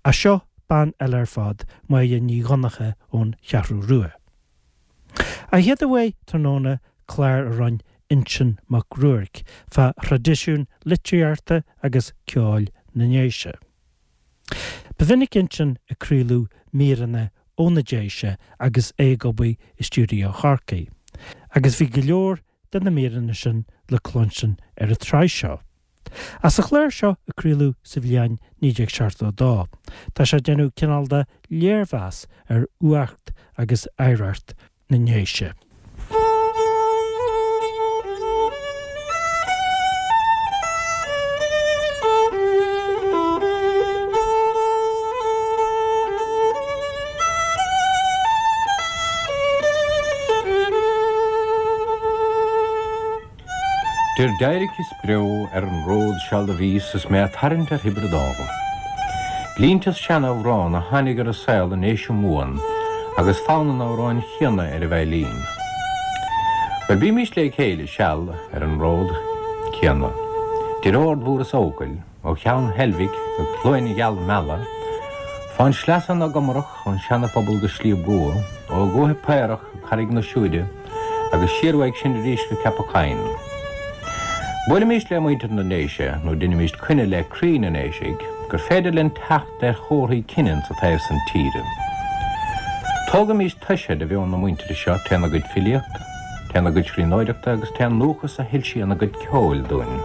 Ach seo bean eile ar fad, Máire Ní Dhonncha ón Cheathrú Rua. An chéad uair tráthnóna clár a roinn Uinseann Mac Ruairc fá thraidisiún litríochta agus ceoil na nDéise. Ba mhinic Uinseann ag craoladh míreanna ó na Déise agus é ag obair i stiúideo Chorcaí, agus bhí go leor de na míreanna sin le cluinstin ar an tsraith seo. Ach sa chlár seo a craoladh sa bhliain 1972, tá sé ag déanamh cineál de léirmheas ar fhuacht agus oidhreacht na nDéise. Deir d'éiric is breo ar an ród seal do bhíos is mé a' tarraingt ar Thiobraid Árann. Línte as seanamhrán a tháinig ar an saol i nDéise Mumhan agus fonn an amhráin chéanna ar an veidhlín. Bhuel, bímís lé chéile seal ar an ród céanna. 'Dir Ard Mhór is Eochaill, ó Cheann Heilbhic go Cluain Gheal Meala, fán sleasa na gComarach, ón Seana-Phobal go Sliabh gCua, ó Dhúiche Paorach go Carraig na Siúire, agus siar uaidh sin arís go Ceapach Choinn. Buailimís le muintir na nDéise, nó deinimíst coinne le croí na nDéisigh, gur féidir linn teacht ar chomharthaí cine insa taobh san tíre. Tógaimís toise de mheon na muintire seo trén a gcuid filíochta, trén a gcuid scríbhneoireachta agus trén ndúchas a shoilsíonn a gcuid ceoil dúinn.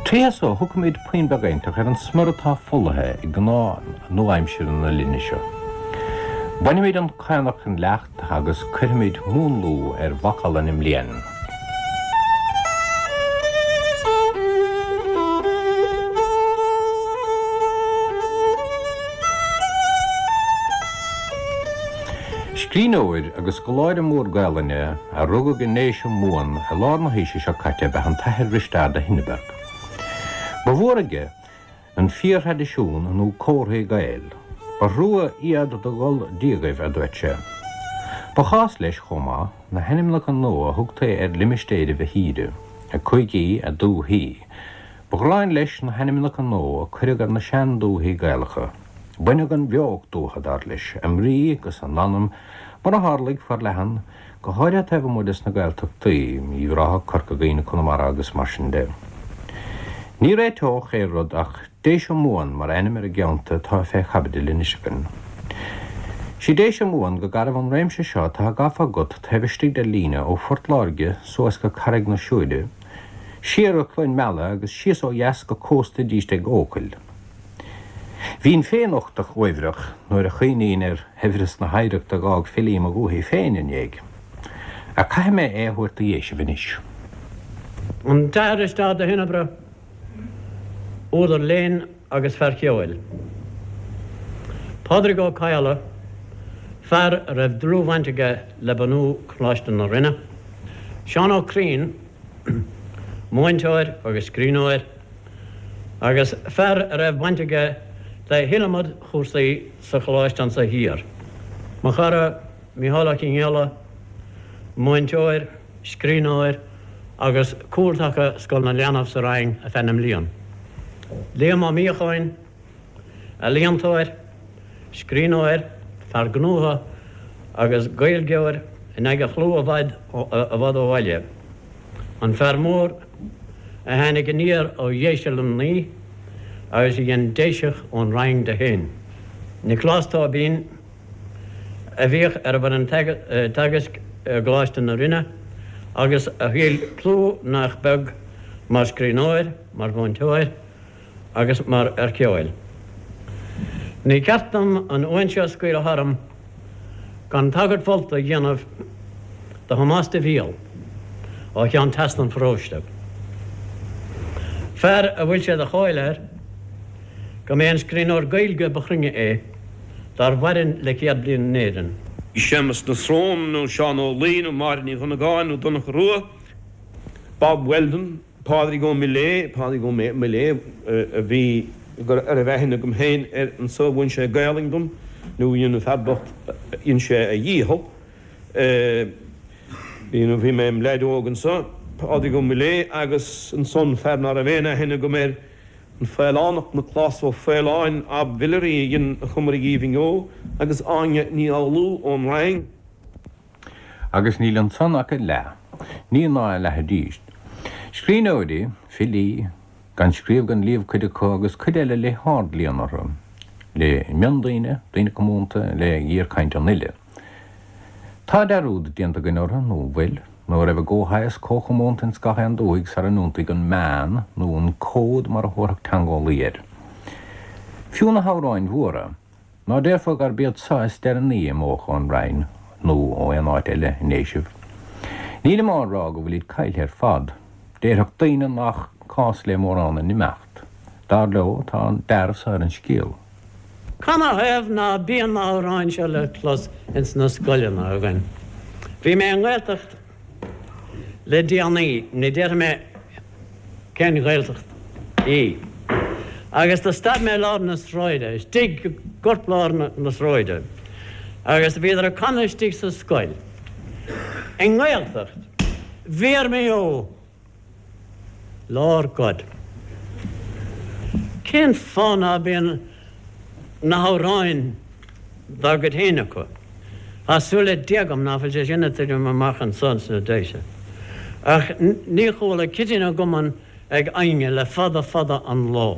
Tríothu so, thiocfaimid puinn beag inteacht ar an smior atá folaithe i gcnámha nua-aimsire na linne seo. Bainfimid an caonach den leacht agus cuirfimid múnlú ar mhacalla na mblian. Scríbhneoir agus scoláire mór Gaelainne a rugadh i nDéise Mumhan i lár na haoise seo caite ab ea an tAthair Risteard de Hindeberg. Ba mhór aige an fíorthraidisiún nó comharthaí Gael. Ba thrua iad do dhul díogaibh, a dúirt sé. Ba chás leis, chomh maith, na hainmneacha nua a thugtaí ar limistéiribh a thíre, a cúigí, a dúthaí. Ba ghráin leis na hainmneacha nua a cuireadh ar na sean-dúthaí Gaelacha. Baineadh an bheocht uathu, dar leis, a mbrí 'gus a n-anam, mar a tharlaigh, forleathan, go háirithe taobh amuigh des na Gaeltachtaí, Uíbh Ráthach, Corca Dhuibhne, Conamara agus mar sin de. Ní réiteodh aon rud ach Déise Mumhan mar ainm ar an gceantar atá fé chaibidil anois againn. Sí Déise Mumhan go garbh an réimse seo atá gafa agat taobh istigh de líne ó Phort Láirge suas go Carraig na Siúire, siar go Cluain Meala agus síos ó dheas go cósta arís ag Eochaill. Bhínn féin uchtach uaibhreach nuair a chuimhnínn ar shaibhreas na hoidhreachta a dh'fhág filí mo dhúthaigh féin i ndéidh. Ach caithfidh mé é a thabhairt do Dhéisibh anois. An tAthair Risteárd de hInnebre, údar léinn agus fear ceoil. Pádraig Ó Cadhla, fear a raibh dlúthbhaint aige le bunú Choláiste na Rinne. Seán Ó Criain, múinteoir agus scríbhneoir. agus fear a raibh baint aige le hiliomad chúrsaí sa choláiste anso thiar. Mo chara Mícheál Ó Conghaile, múinteoir, scríbhneoir agus cúltaca Scoil na Leanbh sa Rinn ar feadh na mblian. Liam Ó Míocháin, ealaíontóir, scríbhneoir, fear gnótha agus Gaeilgeoir in aghaidh a chlú i bhfad i bhfad ó bhaile. An fear mór a tháinig aniar ó Dhéise Luimnigh agus a dhein Déiseach ón Rinn de féin. Nioclás Tóibín a bhíodh ar an bhfoireann teagaisc i gColáiste na Rinne agus a thuill clú nach beag mar scríbhneoir, mar mhúinteoir agus mar fhear ceoil. Ní ceart dom an uain seo scaoileadh tharam gan tagairt mholta a dhéanamh do Thomás de Bhial ó cheann trasna an pharóiste. Fear a bhfuil sé de cháil air go mb'é an scríbhneoir Gaeilge ba chruinne é dár mhaireann le 100 bliain in Éirinn. Séamus na Srón nó Seán Ó Laoi nó Máire Ní Dhonnagáin nó Donncha Rua, Bob Weldon, Pádraig Ó Miléadha, Pádraig Ó Miléadha a bhí, a raibh aithne agam féin air anso, mhúin sé Gaelainn dom, nó dhein an fear bocht, dhein sé a dhícheall. Bhí, nó bhí mé im leaid óg anso, Pádraig Ó Miléadha agus ansan fear ná raibh aon aithne agam air. An Faolánach Nioclás Ó Faoláin ab Mhillery a dhein a Chumairg Aoibhinn Ó agus Áine Ní Fhoghlú ón Rinn. Agus níl ansan ach a leath, ní ná a leath arís. Scríbhneoirí, filí, gan scríobh gan léamh cuid acu agus cuid eile le hardléann orthu, le miondaoine, daoine comúnta, le géarchaint an uile. Tá dearúd déanta againn orthu, nó an bhfuil? Nó a raibh a gcomhshaghas comhchomónta ins gach aon dúthaigh sara n-iontaigh an meán, nó an cód mar a thabharfadh teangeolaí air. Fiú na hamhráin mhóra, ná déarfá gurb iad so is deireanaí a imeodh ón Rinn, nó ó aon áit eile i nDéisibh. Nílim á rá go bhfuilid caillthe ar fad. Déarfadh daoine nach cás le mórán a n-imeacht. Dar leo, tá an dearbh so ar an scéal. Canathaobh ná bíonn na hamhráin seo le clos ins na scoileanna againn? Bhí mé i nGaeltacht le déanaí, ní déarfaidh mé cén Ghaeltacht í, agus do stad mé i lár na sráide, istigh i gcorplár na sráide, agus bhíodar ag canadh istigh sa scoil i nGaeltacht, Bhí mé ó! Lord God. Cén fáth ná bíonn na hamhráin dá gcuid féin acu? Tá súil le Dia agam ná fuil sé sin ag titim amach anso sna Déise. Ach ní chuala Cití na gCumann ag éinne le fada fada an lá.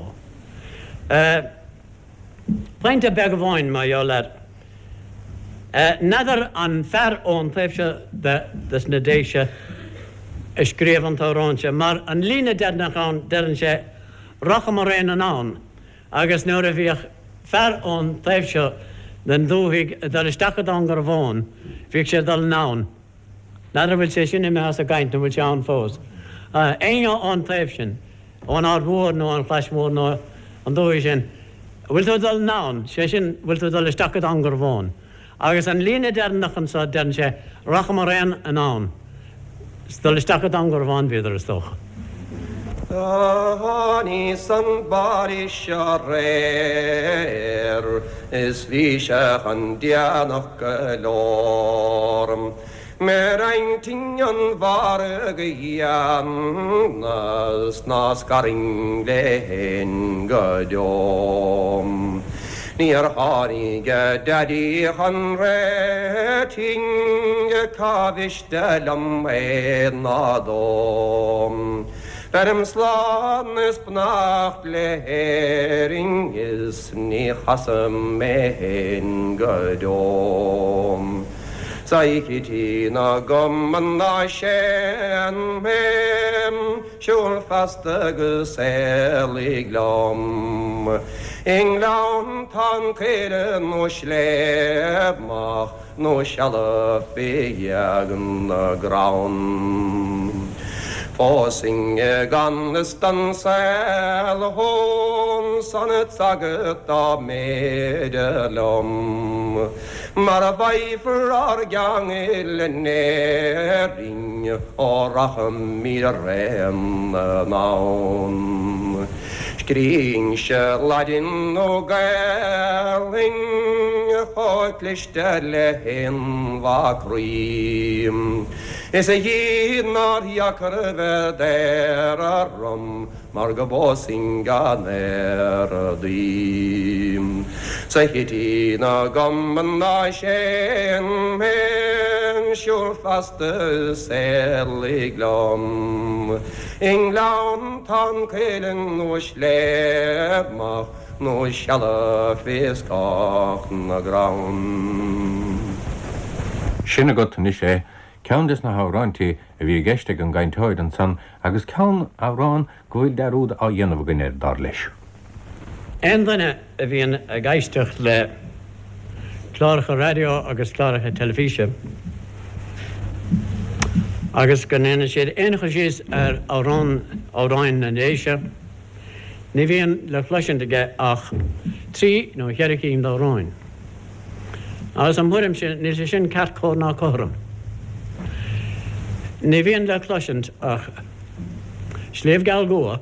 Pointe beag amháin mar gheall air. N'fheadar an fear ón taobh seo de sna Déise a scríobh an t-amhrán seo, mar an líne deireanach ann deireann sé 'Racham araon anonn' agus nuair a bhíodh fear ón taobh seo den dúthaigh ag dul isteach go Dún Garbhán bhíodh sé ag dul anonn. N'fheadar an bhfuil sé sin imithe as an gcaint nó an bhfuil sé ann fós. Éinne ón taobh sin, ón Aird Mhór nó an Chlais Mhór nó an dúthaigh sin, an bhfuil tú ag dul anonn, sé sin, bhfuil tú ag dul isteach go Dún Garbhán. Agus an líne deireanach anso, deireann sé, racham araon anonn. Is dul isteach go Dún Garbhán bhíodar, is dócha. Do tháiníos an baile seo aréir is bhí sé chun déanach go leor. Mé roinnt an mhargaidh a dhéanamh 's ná scarfainn léi fhéin go deo. Níor tháinig a daidí chun réitigh cá mhiste liom é ná dó. Beirim slán is beannacht le hÉirinn is ní chasfaidh mé fhéin go deo. 'S a Chití na gCumann ná séan mé, siúl feasta agus éalaigh liom. I nGleanntán caora nó sléibh nó seala fé ghéag na gcrann. Phósfainn i gan fhios don saol thú san agat dá mb'fhéidir liom. Mar a bhfaighfear ár gceangal in Éirinn ó rachaimid araon anonn. Scríobhainnse Laidin nó Gaelainn chomh cliste le haon mhac rí. Is a Dhia nár dheacair a bheith daor orm mar go bpósfainn gan éaradaí. 'S a Chití na gCumann ná séan mé, siúl feasta is éalaigh liom. I nGleanntán cuilinn nó sléibh mach nó seala fé scáth na gcrann. Sin agat anois é, ceann des na hamhráintí a bhí i gceist ag an gcainteoir ansan agus ceann, amhrán, go bhfuil dearúd á dhéanamh againn air, dar leis. Aon duine a bhíonn ag éisteacht le cláracha raidió agus cláracha teilifíse agus go ndéanann siad aon chur síos ar amhrán, amhráin na nDéise, ní bhíonn le cloisint aige ach trí nó cheithre cinn d'amhráin. Agus im thuairimse, níl sé sin ceart cóir ná cothrom. Ní bhíonn le cloisint ach Sliabh Geal Gua,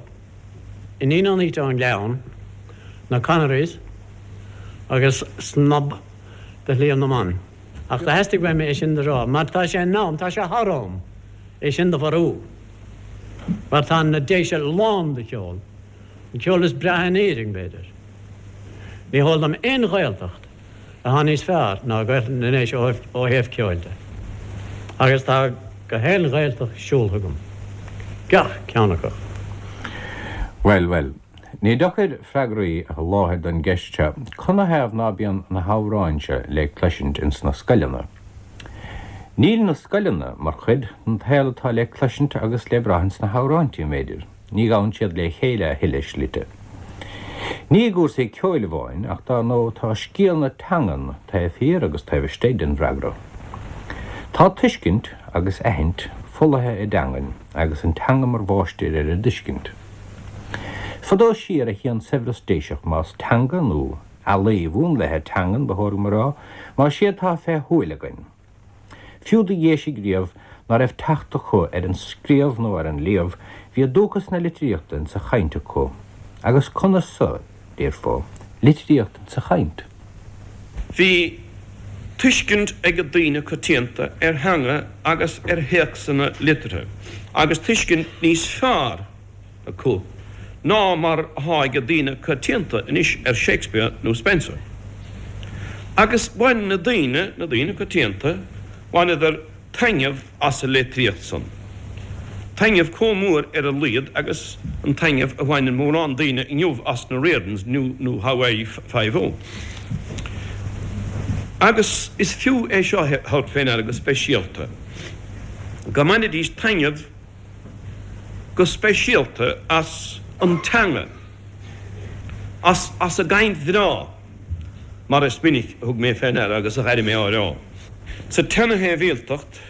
Iníon an Fhaoite ón nGleann, na Connerys agus Snob de Shliabh na mBan. Ach do theastaigh uaim é sin do rá, mar tá sé in am, tá sé thar am, é sin do mharú. Mar tá na Déise lán de cheol. An ceol is breátha in Éirinn, b'fhéidir. Ní heol dom aon Ghaeltacht atá níos fearr ná Gaeltacht na nDéise ó thaobh ceoil de. Agus tá gach aon Ghaeltacht siúltha agam. Gach ceann acu. Bhuel, bhuel. Ní deacair freagraí a sholáthar don gceist seo, canathaobh ná bíonn na hamhráin seo le cloisint ins na scoileanna? Níl na scoileanna mar chuid den tsaol atá le cloisint agus le brath ins na hamhráintí, m'fhéidir. Ní ghabhann siad le chéile a thuilleadh slite. Ní i gcúrsaí ceoil amháin, ach dar ndóigh tá scéal na teangan taobh thiar agus taobh istigh den bhfreagra. Tá tuiscint agus aithint folaithe i dteangain agus an teanga mar mháistir ar an dtuiscint. Fadó siar a shuíonn saibhreas Déiseach más teanga nó ealaí mhúnlaithe teangan ba chóir dom a rá, más é atá fé shúil againn. Fiú do Dhéisigh riamh ná raibh teacht acu ar an scríobh nó ar an léamh, bhí dúchas na litríochta insa chaint acu. Agus conas so, déarfá, litríocht insa chaint? Bhí tuiscint ag daoine coitianta ar theanga agus ar théacsanna liteartha, agus tuiscint níos fearr acu ná mar atá ag daoine coitianta anois ar Shakespeare nó Spenser. Agus bhain na daoine, na daoine coitianta, bhaineadar taitneamh as an litríocht san. Taitneamh chomh mór ar a laghad agus an taitneamh a bhaineann mórán daoine inniu as na Riordans nó Hawaii Five-O. Agus is fiú é seo a thabhairt fé ndeara go speisialta, go mbainidís taitneamh, go speisialta as an teanga, as as a gcaint bhreá, mar is minic a thug mé fé ndeara agus a dh'airigh mé á rá. Sa tseana-shibhialtacht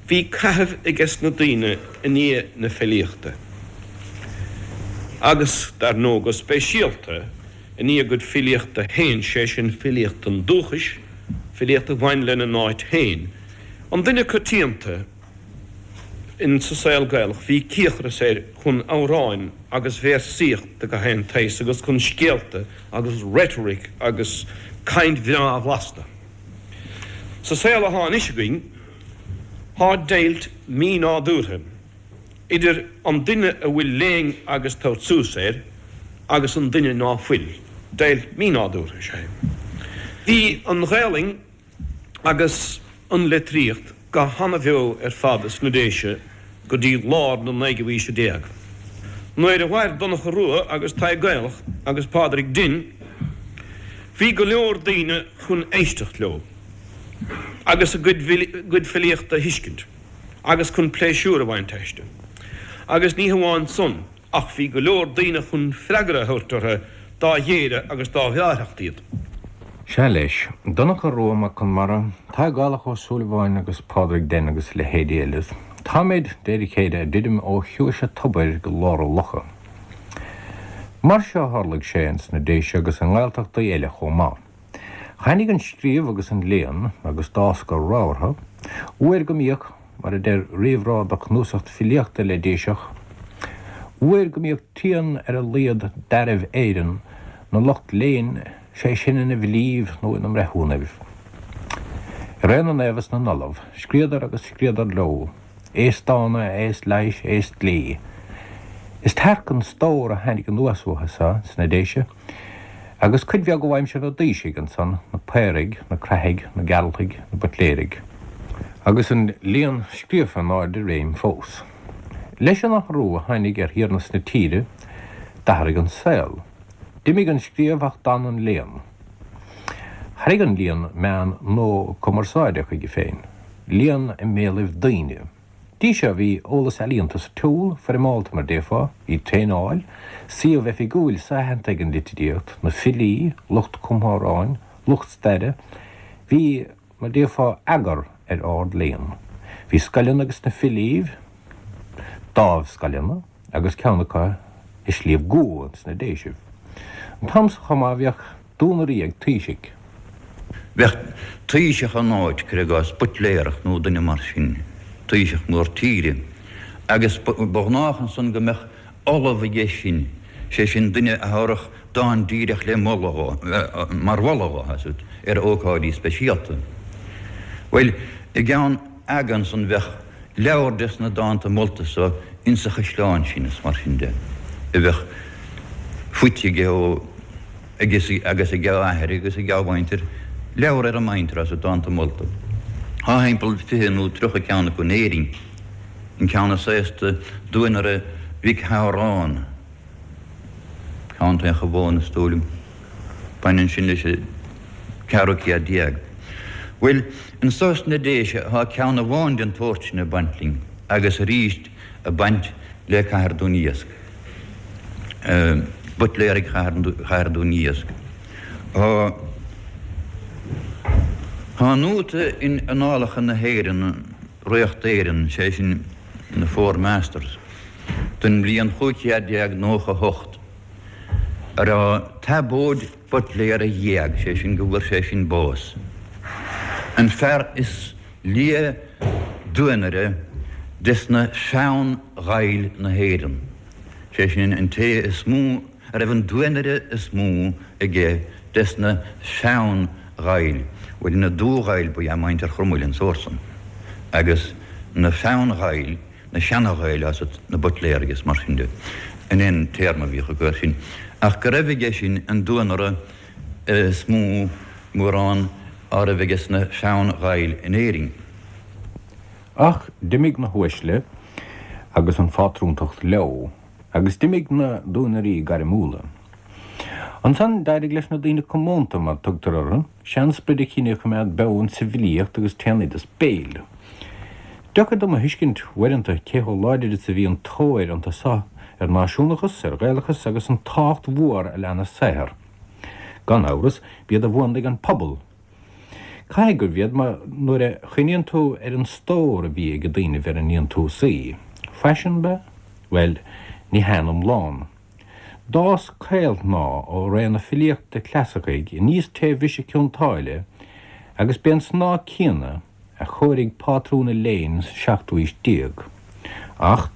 bhí caitheamh ages na daoine i ndiaidh na filíochta, agus dar ndóigh go speisialta i ndiaidh a gcuid filíochta féin, sé sin filíocht an dúchais, filíocht a bhain lena n-áit féin. An duine coitianta. In sa saol Gaelach bhí cíocras air chun amhráin agus véarsaíocht de gach aon tsaghas agus chun scéalta agus rhetoric agus caint bhreá a bhlastadh. Sa saol athá anois againn thá deighilt mí-nádúrtha idir an duine a bhfuil léann agus tabhairt suas air agus an duine ná fuil. Deighilt mí-nádúrtha is ea é. Bhí an Ghaelainn agus an litríocht go hana-bheo ar fad sna Déise go dtí lár na naoú haoise déag. Nuair a mhair Donncha Rua agus Tadhg Gaelach agus Pádraig Dinn bhí go leor daoine chun éisteacht leo agus a gcuid filíochta a thuiscint agus chun pléisiúr a bhaint aisti. Agus ní hamháin san, Ach bhí go leor daoine chun freagra a thabhairt orthu dá ghéire agus dá bhreáthacht iad. Sea leis, Donncha Rua Mac Conmara, Tadhg Gaelach Ó Súilleabháin agus Pádraig Den agus a leithéidí eile, táimid, de réir a chéile, ag druidim ó chiumhais an tobair go lár an locha. Mar seo a tharlaigh sé ins na Déise agus i nGaeltachtaí eile chomh maith. Tháinig an scríobh agus an léann, agus d'fhás go rabhartha, uair go mbíodh, mar a deir réamhrá do chnuasacht filíochta le Déiseach, uair go mbíodh trian ar a laghad d'fhearaibh Éireann 'na lucht léinn, sé sin ina bhfilíbh nó ina mbreithiúnaibh. I ré na naomh is na n-ollamh, scríodar agus scríodar leo, aos dána, aos leighis, aos dlí. Is tearc an stór a tháinig anuas uathu so sna Déise, Agus cuid bheag ó aimsir na dtaoisigh ansan, na Paoraigh, na Craithigh, na Gearaltaigh, na Buitléirigh. Agus an léann scríofa in airde réim fós. Leis an athrú a tháinig ar thiarnas na tíre, d'athraigh an saol. D'imigh an scríobh ach d'fhan an léann. Tharraing an léann meán nua cumarsáide chuige féin, léann i mbéalaibh daoine. Dtí seo bhí eolas ealaíonta sa tsiúl, foirmeálta mar déarfá, bhí traenáil, suíomh oifigiúil so-aitheanta ag an litríocht, na filí, lucht cumtha amhráin, lucht staire, bhí, mar déarfá, eagar ar ard-léann. Bhí scoileanna ages na filíbh, dámhscoileanna, agus ceann acu i Sliabh gCua sna Déisibh. An t-am so chomh maith bhíodh duanairí ag taoisigh. Bheadh taoiseach in áit, cuir i gcás, Buitléarach nó duine mar sin, taoiseach mór tíre, agus ba ghnách ansan go mbeadh ollamh aige sin, sé sin duine a thabharfadh dán díreach le moladh dhó, mar mholadh dhó, tá 's agat, ar ócáidí speisialta. Bhuel, i gceann aga ansan bheadh leabhar des na dánta molta so insa chaisleán sin is mar sin de a bheadh. Faighte aige ó aige agus ag a athair agus ag a mhuintir, leabhar ar a muintir as dánta molta. Tá thimpeall 20 nó 30 ceann acu in Éirinn. An ceann is aosta, Duanaire Mhic Shamhráin, Contae an Chabháin is dóigh liom. Baineann sin leis an ceathrú céad déag. Bhuel, anso sna Déise tá ceann amháin den tsórt sin ag baint linn agus arís ag baint le Cathair Dún Iasc. Buitléaraigh Chathair Dún Iasc. Tá nóta in Annálacha na hÉireann, Ríocht Éireann, sé sin na Four Masters, don bhliain 1598, a raibh Tabóid Buitléara d'éag, sé sin go bhfuair sé sin bás. An fear is lia duanaire des na sean-Ghaill na hÉireann, sé sin an té is mó a raibh an duanaire is mó aige des na sean-Ghaill, bhuel na Dubh-Ghaill ba ea muintir Chromaill an sórt san, agus na sean-Ghaill, na seana-Ghaill as na Buitléaraigh is mar sin de, an é an téarma a bhíodh acu air sin, ach go raibh aige sin an duanaire is mó mórán á raibh aige sna sean-Ghaill in Éirinn. Ach d'imigh na huaisle agus an phátrúntacht leo, agus d'imigh na duanairí gairmiúla. Ansan d'éirigh leis na daoine comónta, mar tugtar orthu, sean-sprid a chinnidh a choimeád beo insa bhfilíocht agus t-sean-oideas béil. Deacair dom a thuiscint, uaireanta, cé chomh láidir is a bhí an tóir iontu so ar náisiúnachas, ar Ghaelachas agus an tábhacht mhór a lean a saothar. Gan amhras, b'iad a bhuanaigh an pobal. Caithfidh gurbh iad, mar nuair a chuimhníonn tú ar an stór a bhí ag daoinibh ar a ndéantúsaí, faisean ab ea? Bhuel, ní hea in iomlán. D'fhás caolshnáth ó ré na filíochta clasaicí aníos taobh bhriseadh Cionn tSáile agus b'é an snáth céanna a chóirigh pátrún an léinn sa seachtú aois déag. Ach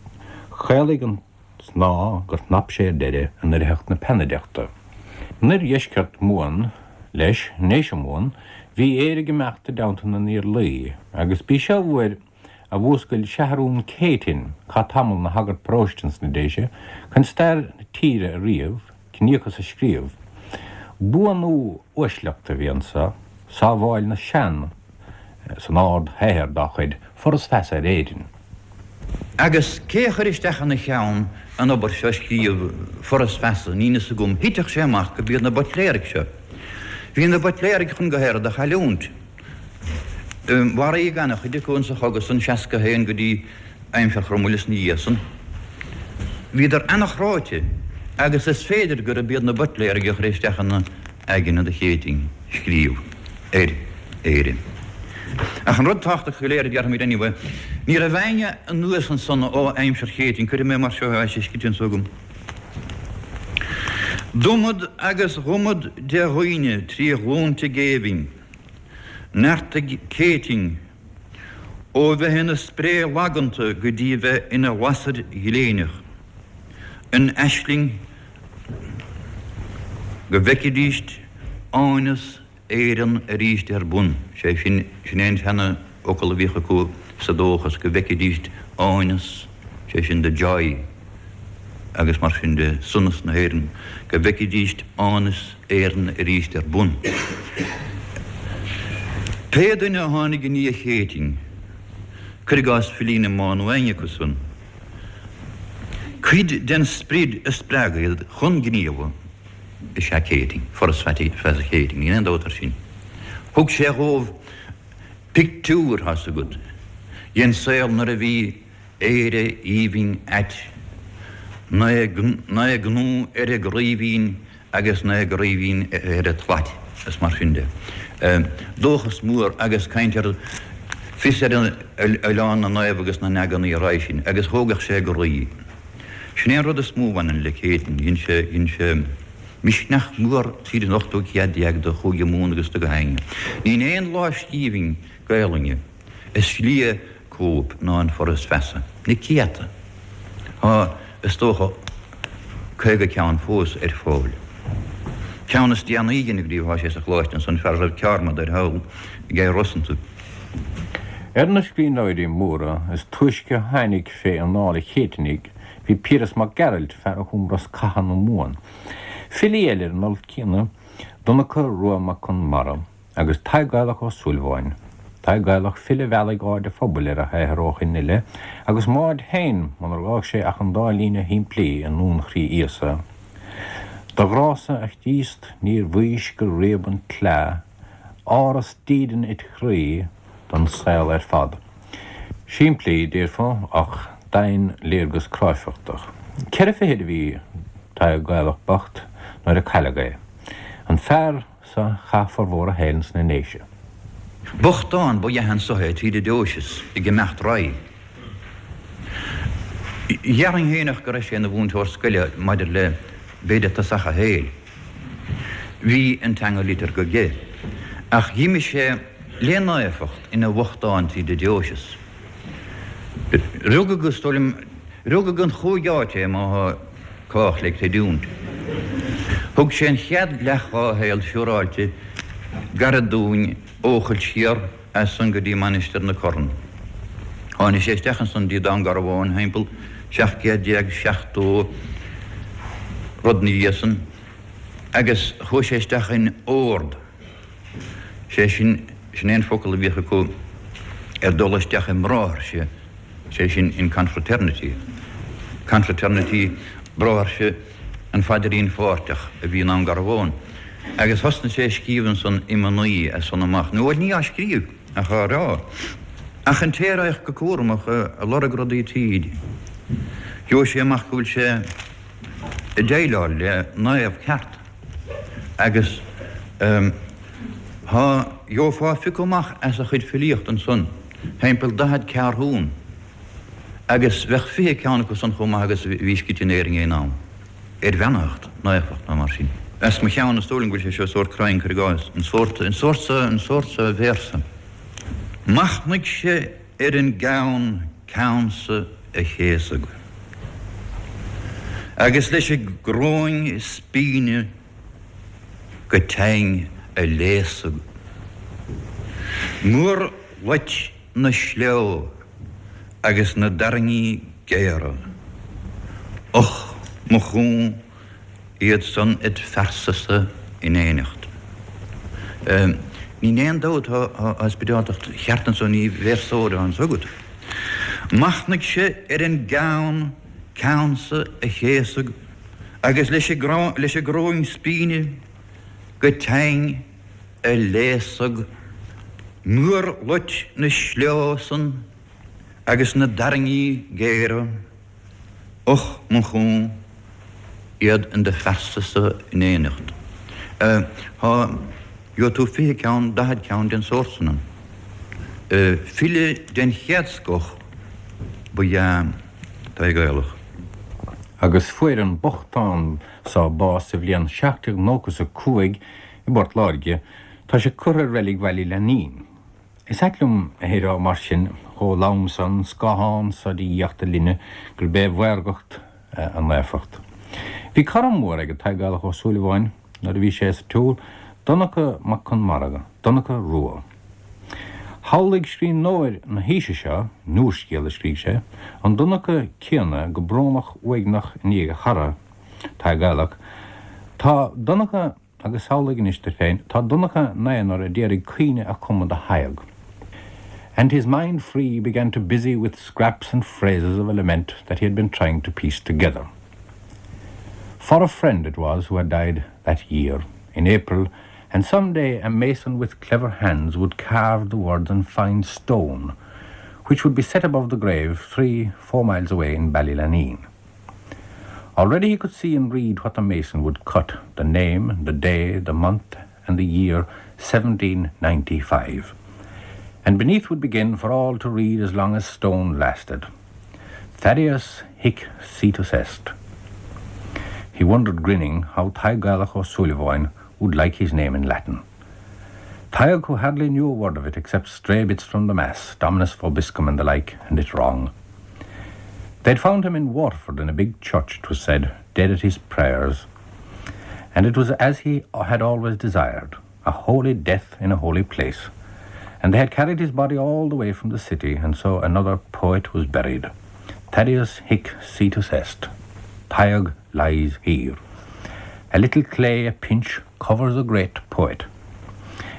chaolaigh an snáth gur chnap sé ar deireadh in oirtheacht na peannaideachta. In oirdheisceart Mumhan, leis, i nDéise Mumhan, bhí Éire ag imeacht i dteannta na nIarlaí, agus b'í seo uair a mhúscail Seathrún Céitinn, chaith tamall 'na shagart paróiste ins na Déise, chun stair na tíre a ríomh, ciníochas a scríobh. Buanú uaisleachta a bhí anso, sábháil na sean san ard-shaothar dá chuid, Foras Feasa ar Éirinn. Agus cé a chuir isteach ina cheann an obair seo a scríobh, Foras Feasa, níl fhios agam, thitfeadh sé amach go b'iad na Buitléaraigh seo. Bhí na Buitléaraigh chun go hArd a chailliúint. Mharaíodh an-chuid acu insa chogadh san, 61 go dtí aimsir Chromaill is na dhiaidh san. Bhíodar an-chráite agus is féidir gurb iad na Buitléaraigh a chuir isteach ina aigne do Chéitinn scríobh ar Éirinn. Ach an rud tábhachtach go léir a déarfaimid anyway, ní raibh éinne anuas ansan ó aimsir Chéitinn, cuirfidh mé mar seo é, tá sé scríte anso agam. D'iomad agus dh'iomad de dhaoine trí ghlúnta géibhinn. Neartaigh Céitinn ó bheith ina spré laganta go dtí bheith ina lasair ghléineach, an aisling go bhfeicfidíst áineas Éireann arís ar bun, sé sin, sin é an seana-fhocal a bhíodh acu sa dóchas, go bhfeicfidíst áineas, sé sin the joy agus mar sin de, sonas na hÉireann, go bhfeicfidíst áineas Éireann arís ar bun. Pé duine a tháinig i ndiaidh Chéitinn, cuir i gcás Filí na mBan nó éinne acu san, cuid den sprid a spreag iad chun gníomha is ea Céitinn, Foras Feasa Chéitinn, níl aon dabht air sin. Thug sé dhóibh pictiúr, tá's agat, den saol nuair a bhí Éire aoibhinn ait, 'na gnó ar an gcraoibhín agus 'na gcraoibhín ar an tslait, is mar sin de. Dóchas mór agus caint ar fios ar Oileán na Naomh agus na n-eagnaí a raghaidh sin, agus thógadh sé a gcroí. Sin é an rud is mó a bhaineann le Céitinn, dhein sé, dhein sé misneach mór tríd an ochtú céad déag do Chúige Mumhan agus do gach éinne. Níl aon lámhscríbhinn Gaelainne is lia cóip ná an Foras Feasa. Na céadta. Tá, is dócha, 50 ceann fós ar fáil. Ceann is déanaí a deineadh riamh, tá sé sa Choláiste ansan, fear a raibh ceármad air thall ag Rosanta. Ar na scríbhneoirí móra is túisce a tháinig fé anáil an Chéitinnigh bhí Piaras Mac Gearailt, fear a chum Rosc Catha na Mumhan. Filí eile ar an alt céanna, Donncha Rua Mac Conmara agus Tadhg Gaelach Ó Súilleabháin. Tadhg Gaelach, file a mheallfaidh aird an phobail ar a shaothar ó shin i leith, agus m'aird féin munar fhág sé ach an dá líne shimplí i nDún Chroí Íosa, Do ghrá-sa, a Chríost, níor bhaois gur réab an tsleá, Áras dídean it chroí don saol ar fad. Simplí, déarfá, ach doimhin léargas cráifeachtach. Ceithre fichid a bhí Tadhg Gaelach bocht nuair a cailleadh é. An fear so chaith formhór a shaoil sna nDéise. Bochtán ba ea anso é tríd an deoiseas ag imeacht ar aghaidh. Dhéarfainn fhéineach go raibh sé ina mhúinteoir scoile maidir le b'fhéidir tosach a shaoil. Bhí an teanga liteartha aige, ach dh'imigh sé le naofacht ina bhochtán tríd an deoiseas. Rugadh, is dóigh liom, rugadh in chúig áit é má thá cách le creidiúint. Thug sé an chead leath dhá shaol siúráilte gairid dúinn Eochaill siar as san go dtí Mainistir na Corann. Tháinig sé isteach ansan dtí Dún Garbhán thimpeall 1770 rud 'na dhiaidh san agus chuaigh sé isteach in ord, sé sin, sin é an focal a bhíodh acu ar dul isteach i mbráithrese, sé sin in confraternity, confraternity bráithrese an Phaidrín Pháirteach a bhí i nDún Garbhán. Agus thosnaigh sé ag scríobh ansan iomannaí as san amach, nó bhuel ní á scríobh ach á rá. Ach an té a raghadh go cúramach ag lorg rudaí tríd, gheobhadh sé amach go bhfuil sé ag déileáil le naomh ceart. Agus thá, gheofá phiocadh amach as a chuid filíochta ansan thimpeall 40 ceathrún. Agus bheadh 20 ceann acu san chomh maith agus a bhí scríte in Éirinn aon am, ar bheannaitheacht, naofacht nó mar sin. As mo cheann, is dóigh liom go bhfuil sé seo sórt cruinn, cuir i gcás, an sórt, an sórt so, an sórt so véarsa. Machnaigh-se ar an gceann ceannsa a chéasadh, agus leis an gcróin spíne go teinn a léasadh. Muir loit na sleo agus na dtairngí géara. Och, mo chú, iad san id phearsa-sa in éineacht. Ní aon dabht tá spioradáltacht cheart anso, ní véarsóir atá anso agat. Machnaigh-se ar an gceann ceannsa a chéasadh agus leis an gcróin spíne go teinn a léasadh muir loit na sleo san agus na dtairngí géara, och mo chú, iad in do phearsa-sa in éineacht. Thá, gheobhaidh tú 20 ceann, 40 ceann den sórt san ann. File den chéad scoth ba ea Tadhg Gaelach. Agus fuair an bochtán so bás sa bhliain 1795 I bPort Láirge, tá sé curtha i reilig Bhaile Lainín. Is ait liom a rá mar sin, chomh lom san, scáthán so de dhiacht a linne, gurb é a mhaorgacht a naofacht. Bhí cara mór ag Tadhg Gaelach Ó Súilleabháin nuair a bhí sé sa tsiúl, Donncha Mac Conmara, Donncha Rua. Shamhlaigh scríbhneoir na haoise seo, in úrscéal a scrígh sé, an Donncha céanna go brónach uaigneach i ndiaidh a chara, Tadhg Gaelach. Tá Donncha, agus samhlaigh anois duit féin, tá Donncha 'na aonar a d'iarraidh caoineadh a chumadh do Thadhg. And his mind free began to busy with scraps and phrases of a lament that he had been trying to piece together. For a friend it was who had died that year, in April, and some day a mason with clever hands would carve the words on fine stone, which would be set above the grave 3, 4 miles away in Ballylaneen. Already he could see and read what the mason would cut, the name, the day, the month, and the year 1795. And beneath would begin for all to read as long as stone lasted. Thaddeus hic situs est. He wondered, grinning, how Tadhg Gaelach Ó Súilleabháin would like his name in Latin. Tadhg, who hardly knew a word of it except stray bits from the Mass, Dominus vobiscum and the like, and it wrong. They'd found him in Waterford in a big church, it was said, dead at his prayers. And it was as he had always desired, a holy death in a holy place. And they had carried his body all the way from the city, and so another poet was buried. Thaddeus hic situs est. Tadhg lies here. A little clay, a pinch, covers a great poet.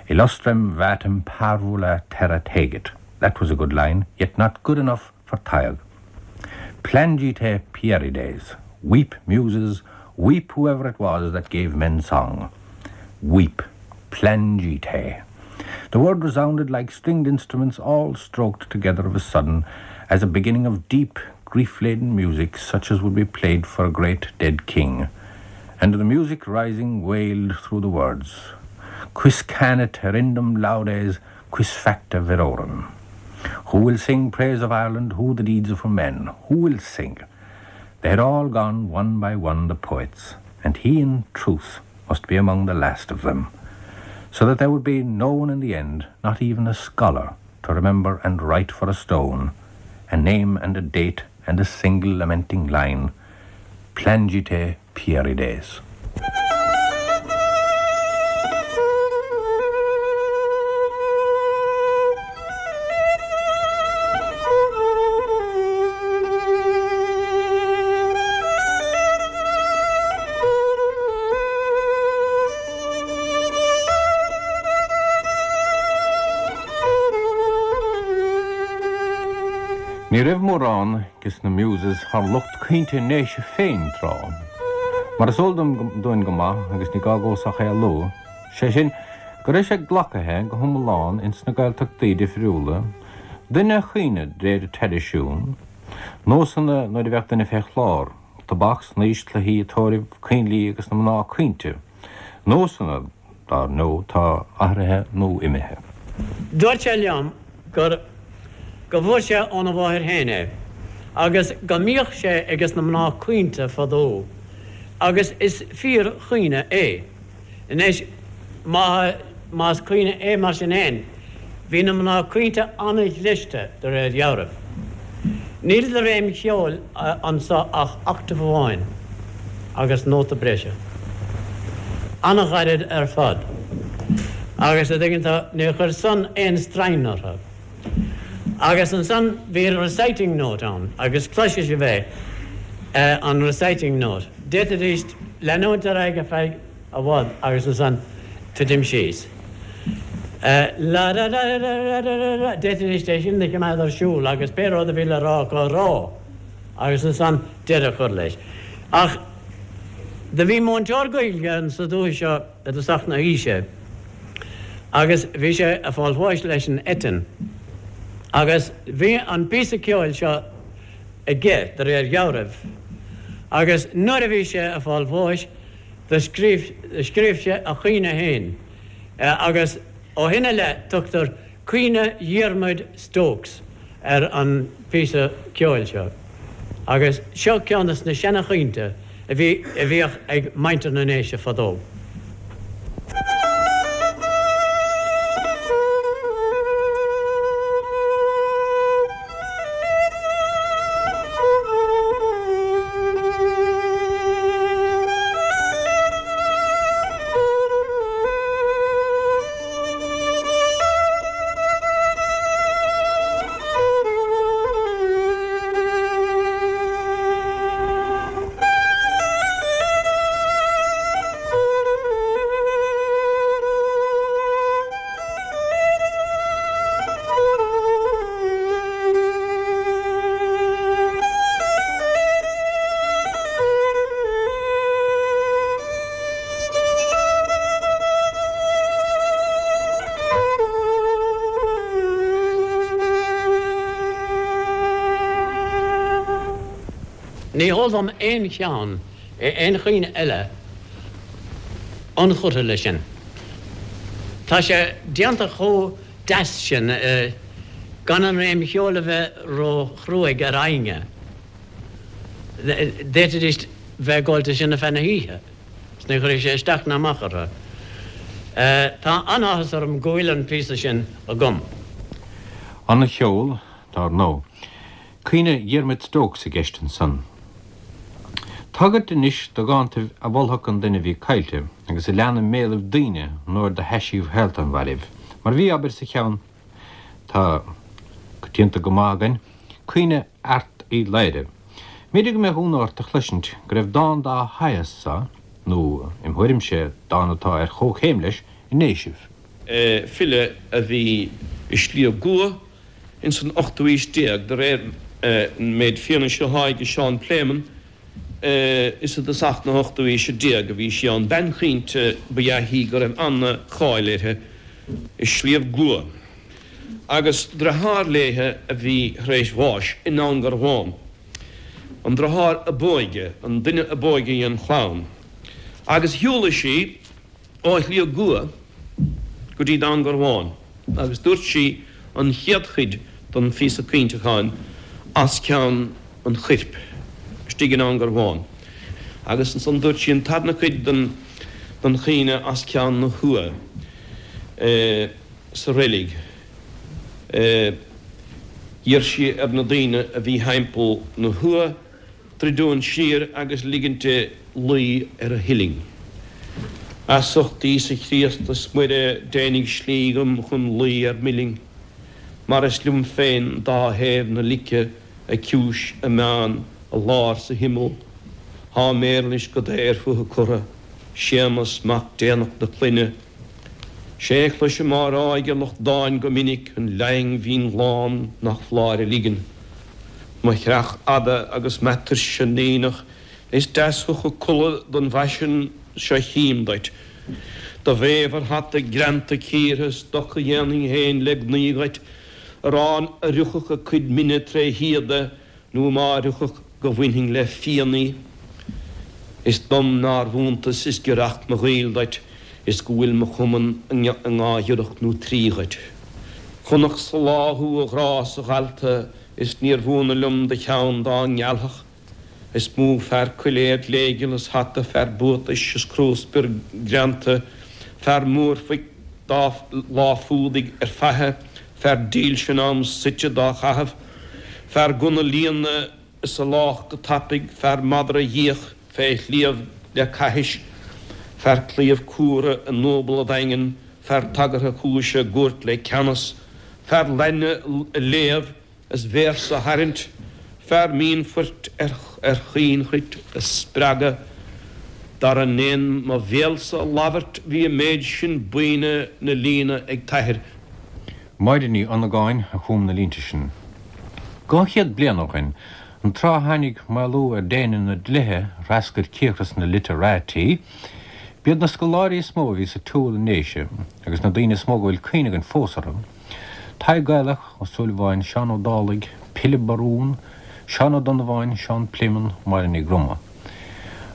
Illustrem vatem parvula terra tegit. That was a good line, yet not good enough for Tadhg. Plangite Pierides. Weep, muses, weep whoever it was that gave men song. Weep. Plangite. The word resounded like stringed instruments all stroked together of a sudden, as a beginning of deep, grief-laden music such as would be played for a great dead king. And the music rising wailed through the words, Quis canit hirindum laudes, quis facta virorum? Who will sing praise of Ireland, who the deeds of her men? Who will sing? They had all gone one by one, the poets, and he in truth must be among the last of them, so that there would be no one in the end, not even a scholar, to remember and write for a stone, a name and a date and a single lamenting line, Plangite Pierides. Ní raibh mórán des na Muses thar lucht caointe na nDéise féin tráth. Mar is eol dúinn go maith, agus ní gá domhsa ach é a lua, sé sin, go raibh sé glacaithe go hiomlán ins na Gaeltachtaí difriúla, duine a chaoineadh de réir traidisiún, nósanna nuair a bheadh duine fé chlár, tobac, snaois, cluichí, tórraimh, coinnlí agus na mná caointe, nósanna, dar ndóigh, tá athraithe nó imithe. Dúirt sé liom gur go bhfuair sé óna mháthair féin é agus go mbíodh sé ages na mná caointe fadó agus is fíor chaoineadh é. Anois má más caoineadh é mar sin fhéin, bhí na mná caointe an-ghliste de réir dhealraimh. Níl de réim cheoil anso ach octave amháin agus nóta breise. An-ghairid ar fad. Agus a dtuigeann tú, níor chuir san aon straidhn orthu. Agus ansan bhí reciting note ann agus cloisfidh sibh é, an reciting note. D'fhéadfaidís leanúint ar aghaidh ar feadh i bhfad agus ansan titim síos. La ra ra ra ra ra ra ra D'fhéadfaidís é sin a choimeád ar siúl agus pé rud a bhí le rá acu a rá agus ansan deireadh a chur leis. Ach do bhí múinteoir Gaeilge insa dúiche seo i dtosach na haoise agus bhí sé ag fáil bháis leis an eitinn agus bhí an píosa ceoil seo aige de réir dhealraimh agus nuair a bhí sé ag fáil bháis Do scríobh sé a chaoineadh féin agus ó shin i leith tugtar Caoineadh Dhiarmuid Stokes ar an phíosa ceoil seo. Agus seo ceann de na seana-chaointe a bhí a bhíodh ag muintir na nDéise fadó. Ní heol dom aon cheann, aon chaoineadh eile ionchurtha leis sin. Tá sé déanta chomh deas sin gan an réim cheoil a bheith ró-chruaidh ar éinne. D'fhéadfaidís bheith ag gabháil de sin ar feadh na hoíche is ní chuirfeadh sé isteach ná amach orthu. Tá an-áthas orm go bhfuil an píosa sin agam. An-cheol, dar ndóigh. Caoineadh Dhiarmuid Stokes i gceist ansan. Tagairt anois do dhántaibh a mholfadh an duine a bhí caillte agus a lean i mbéalaibh daoine nuair do thaisíodh shaolta an mhairbh, mar bhí, abair, sa cheann tá coitianta go maith againn, Caoineadh Airt Uí Laoghaire. Mb'fhéidir go mbeadh ionadh ort a chloisint go raibh dán dá shaghas so. nó im thuairimse, dán atá ar chomhchéim leis i nDéisibh. File a bhí i Sliabh gCua ins an ochtú aois déag, de réir an méid fianaise athá aige Seán Pléimeann, is i dtosach na hochtú aoise déag a bhí sí ann. Bean chaointe ba ea í go raibh ana-cháil uirthi i Sliabh gCua, agus driotháir léithe a bhí tar éis bháis i nDún Garbhán, an driotháir a b'óige, an duine a b'óige dhen chlann, agus shiúladh sí ó Shliabh gCua go dtí Dún Garbhán agus dúirt sí an chéad chuid den phíosa caointeacháin as ceann an choirp istigh i nDún Garbhán agus ansan dúirt sí an tarna cuid den den chaoineadh as ceann na huaighe sa reilig. D'iarr sí ar na daoine a bhí thimpeall na huaighe druidiúint siar agus ligint di luí ar a huillinn. As ucht Íosa Chríost is Muire déanaig slí dhom chun luí ar m'uillinn, mar is liom féin dá thaobh na lice, a ciumhais, a meán, a lár 's a himeall. Thá m'éarlais go daor fúthu curtha, Séamas mac déanach na clainne. 'Sé a chloisim á rá aige lucht dáin go minic, an laing mhín lán nach foláir a ligean. Mo chreach fhada agus m'atuirse n-aonach, is deas thú chomh codladh don bhfaisean seo chím duit. Do bhéibh ar hata greanta cíortha, stoc a dhéanfainn fhéin le gnaoi dhuit, arán a fhriocfadh a cuid mine tré shíoda, nó má fhriocfadh go bhainfinn le fíon í. Is dom nár bh'iontas is giorracht mo ghaoil duit is go bhfuil mo chumann i ndá ghiorracht nó trí dhuit. Chonac sa lá thú a ghrá 's a dhalta is níor bh'ionadh liom do cheann dá ngealfadh. Is mó fear coiléar gléigeal is hata, fear buatais is crúspior greanta, fear múrphoic dá lá fuadaigh ar faiche, fear dílse in am suite dá chaitheamh, fear gunna líonadh is a lách go tapaidh, fear madra dhíoch fé shliabh le caithis, fear claíomh cumhra i ndúbal a dhaingin, fear tagartha cúise i gcúirt le ceannas, fear lainne a léamh is véarsa a tharraingt, fear mínphoirt ar chaoinchruit a spreagadh, dara ndéan mo bhéalsa a labhairt bhí an méid sin buíne 'na líonadh ag t'athair. Máire Ní Dhonnagáin a chum na línte sin. 200 bliain ó shin, an tráth a tháinig maolú ar déine na dlíthe a threascair cíocras na literati, b'iad na scoláirí is mó a bhí sa tsiúl i nDéise agus na daoine is mó go bhfuil cuimhne againn fós orthu, Tadhg Gaelach Ó Súilleabháin, Seán Ó Dálaigh, Pilib Barún, Seán Ó Donnabháin, Seán Pléimeann, Máire Ní Groma.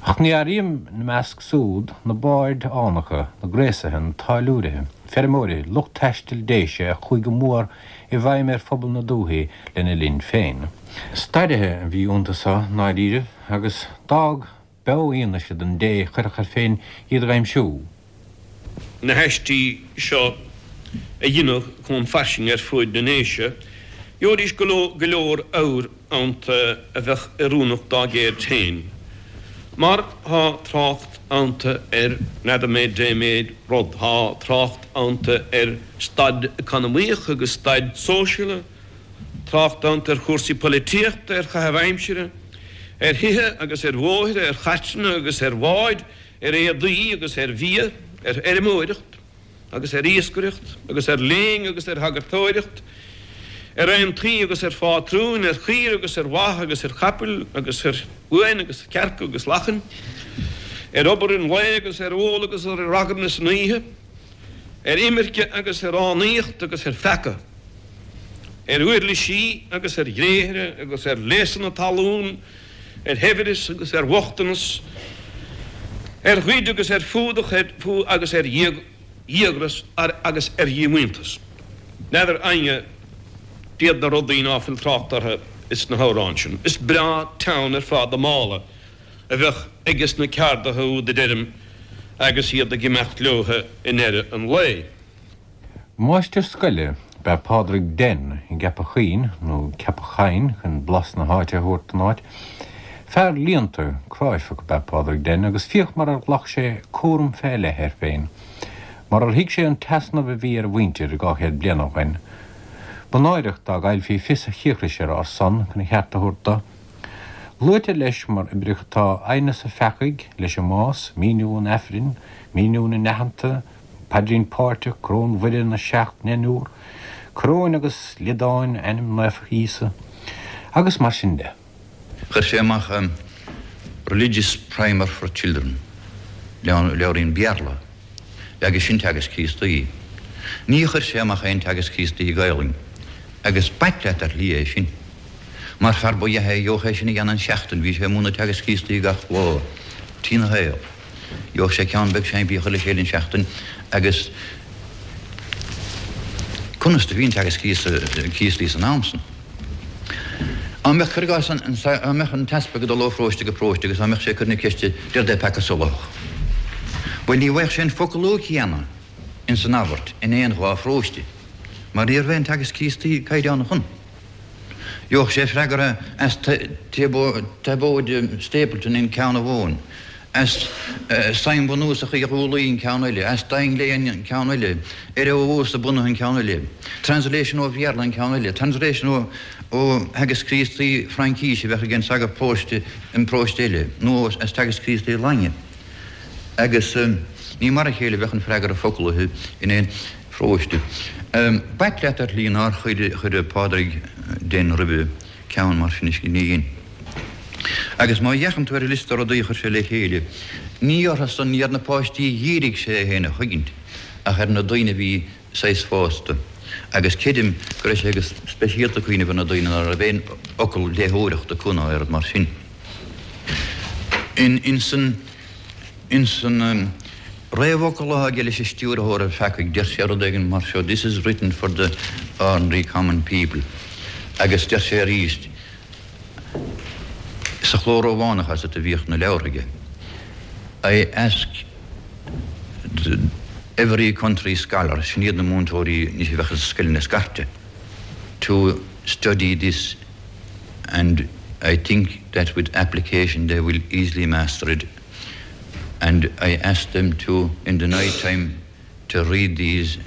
Ach ní áirím ina measc súd na baird fhánacha, na gréasaithe, na táilliúirithe, feirmeoirí, lucht taistil Déise a chuaigh go mór i bhfeidhm ar phobal na dúthaí lena linn féin. Stairithe a bhí iontu so i ndáiríribh agus d'fhág beo-fhianaise don dté a chuirfeadh air féin iad a dh'aimsiú. Na haistí seo a dheineadh chomh fairsing ar fuaid na nDéise, gheobhaidís go leor abhair iontu a bheadh oiriúnach dá gceird féin, mar tá trácht iontu ar n'fheadar mé dé méid rud, tá trácht iontu ar staid eacanamaíoch agus staid sóisialta, trácht iontu ar chúrsaí poilitíochta, ar chaitheamh aimsire, ar thithe agus ar bhóithre, ar chairteanna agus ar bháid, ar éadaí agus ar bhia, ar fheirmeoireacht agus ar iascaireacht agus ar léing agus ar shagartóireacht, ar aontaí agus ar phátrúin, ar chaoire agus ar mhaith agus ar chapaill agus ar uain agus cearca agus lachain, ar obair an lae agus ar ól agus ar ragairne san oíche. ar imirce agus ar fhánaíocht agus ar pheaca, ar uirlisí agus ar ghréithre agus ar léasanna talún, ar shaibhreas agus ar bhochtanas, ar ghoid agus ar fuadach agus ar dhíograis agus ar dhíomhaointeas. N'fheadar éinne cad iad na rudaí ná fuil trácht orthu ins na hamhráin sin. Is breá teann ar fad a mála a bheadh aiges na ceardaithe úd a deirim agus iad ag imeacht leotha i ndeireadh an lae. Máistir scoile ab ea Pádraig Den i gCeapach Chuinn, nó Ceapach Choinn chun blas na háite a thabhairt don áit. Fear líonta, cráifeach ab ea Pádraig Den agus féach mar ar ghlac sé cúram fé leith air féin, mar ar thuig sé an t-easnamh a bhí ar a mhuintir 200 bliain ó shoin. Ba náireach dá gcaillfí fios a chíocrais ar ár son chun a cheart a thabhairt do. Luaitear leis mar oibreacha tá Aighneas an Pheacaigh leis an mBás, Míniú an Aifrinn, Míniú na nAitheanta, Paidrín Páirteach, Coróin Mhuire na Seacht nDeichniúr, Coróin agus Liodáin Ainm Naofa Íosa, agus mar sin de. Chuir sé amach Religious Primer for Children, leabhairín Béarla, agus sin Teagasc Críostaí. Ní chuir sé amach aon Teagasc Críostaí i Gaelainn, agus b'ait leat ar shlí é sin. Mar fear ba ea é, gheobhadh é sin a dhéanamh in seachtain, bhí sé ag múineadh Teagasc Críostaí gach lá trína shaol. Gheobhadh sé ceann beag simplí a chur le chéile in seachtain agus conas do bhí an Teagasc Críostaí san am san? Á mbeadh, cuir i gcás, á mbeadh an t-easpag ag dul ó pharóiste go paróiste agus á mbeadh sé ag cur na ceiste 'Céard é peaca soláthach? Bhuel, ní bhfaigheadh sé an foclú céanna ins an abairt in aon dhá pharóiste mar ní raibh aon Teagasc Críostaí caighdeánach ann. Gheobhadh sé freagra as Taibóid Stapleton in ceann amháin, as Suim Bhunúsach Uí Dhúlaí in ceann eile, as Daingle in ceann eile, Eire ó Uasa bunaithe in ceann eile, Translation ó Bhéarla in ceann eile, Translation ó Theagasc Críostaí Fraincíse a bheadh ag an sagart paróiste in paróiste eile, nó as Teagasc Críostaí Lainge. Agus ní mar a chéile a bheadh an freagra foclaithe in aon pharóiste. B'ait leat ar shlí nár chuir Pádraig Den roimhe ceann mar sin ní dhein. Agus má fhéachann tú ar an liosta rudaí a chuir sé le chéile, ní orthu san, ní ar na páistí a dhírigh sé é féin a thuigint, ach ar na daoine a bhí saghas fásta. Agus creidim go raibh sé go speisialta ag cuimhneamh ar na daoine ná raibh aon fhocal léitheoireachta acu ná aon rud mar sin. Ins an. Ins an réamhfhocal atá aige leis an stiúrthóir ar Pheacaigh, deir sé rud éigin mar seo, This is written for the ordinary common people. Agus deir sé arís, sa chló Rómhánach as a bhíodh na leabhartha aige, I ask the every country scholar, sin iad na múinteoirí anois a bheadh i scoileanna scairte, to study this and I think that with application they will easily master it and I ask them to in the night time to read these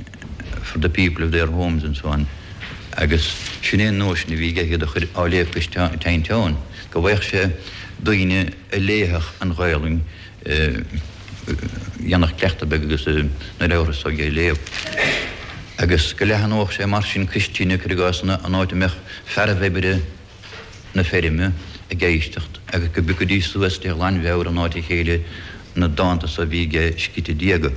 for the people of their homes and so on agus sin é an nóisean a bhí aige iad a chur á léamh go teann teann go bhfaigheadh sé daoine a léifeadh an Ghaelainn dhéanfadh cleachtadh beag agus na leabhartha s'aige a léamh agus go leathnódh sé mar sin cois tine, cuir i gcás, an áit a mbeadh fearaibh oibre na feirme ag éisteacht agus go bpiocfaidís suas de ghlanmheabhair in áit a chéile na dánta so a bhí aige sciorta diaga.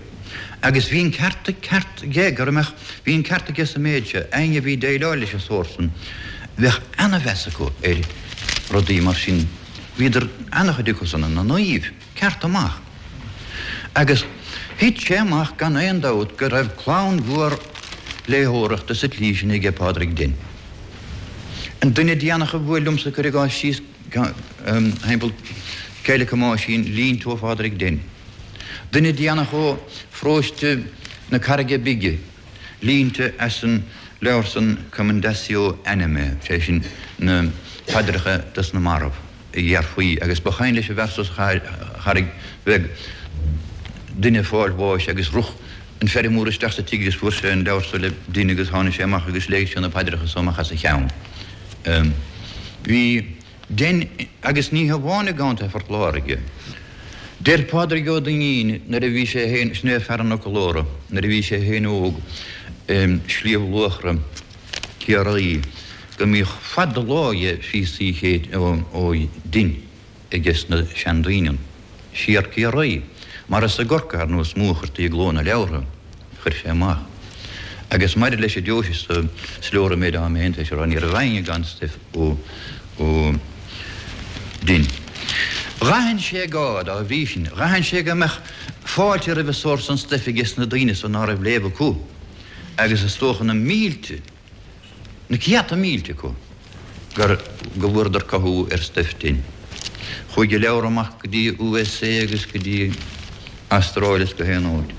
Agus bhí an ceart ceart aige go mbeadh, bhí an ceart aige sa méid seo, éinne a bhí ag déileáil leis an sórt san, bheadh ana-mheas acu ar rudaí mar sin, bhíodar, ana-chuid acu san, ina naoimh. Ceart amach. Agus thit sé amach gan aon dabht go raibh clann mhór léitheoireachta sa tslí sin aige Pádraig Den. An duine déanach a bhuail liomsa cuir i gcás síos thimpeall Céile Thomáisín, línte ó Phádraig Den. Duine déanach ó pharóiste na Carraige Bige, línte as an leabhar san Commendatio Animae, sé sin na paidreacha dos na mairbh. a dhéarfaí, agus ba chuimhin leis an bhfear so sa Charraig Bheag, duine ag fáil bháis agus rith an feirmeoir isteach sa tigh agus fuair sé an leabhar so le Den agus tháinig sé amach agus léigh sé na paidreacha so amach as a cheann. Bhí Den, agus ní hamháin i gContae Phort Láirge. Deir Pádraig Ó Duinnín nuair a bhí sé féin, sin é fear an fhoclóra, nuair a bhí sé féin óg i Sliabh Luachra, Ciarraí, go mbíodh fad an lá dhe phíosaí ó Den aige sna seandaoine ann, siar Ciarraí, mar is i gCorcaigh ar ndóigh is mó a chuirtí i gcló na leabhartha a chuir sé amach. Agus maidir leis an deoise so, is leor an méid atá mé féin tar éis a rá, ní raibh éinne gan stuif ó Den. Dh'aithin sé gá, dá bhrí sin, dh'aithin sé go mbeadh fáilte roimh an sórt san stuif aige sna daoine so ná raibh léamh acu. agus is dócha na mílte, na céadta mílte acu gur, go bhfuaireadar cothú ar stuif Den. Chuaigh a leabhar amach go dtí USA agus go dtí Astráil is go haon áit.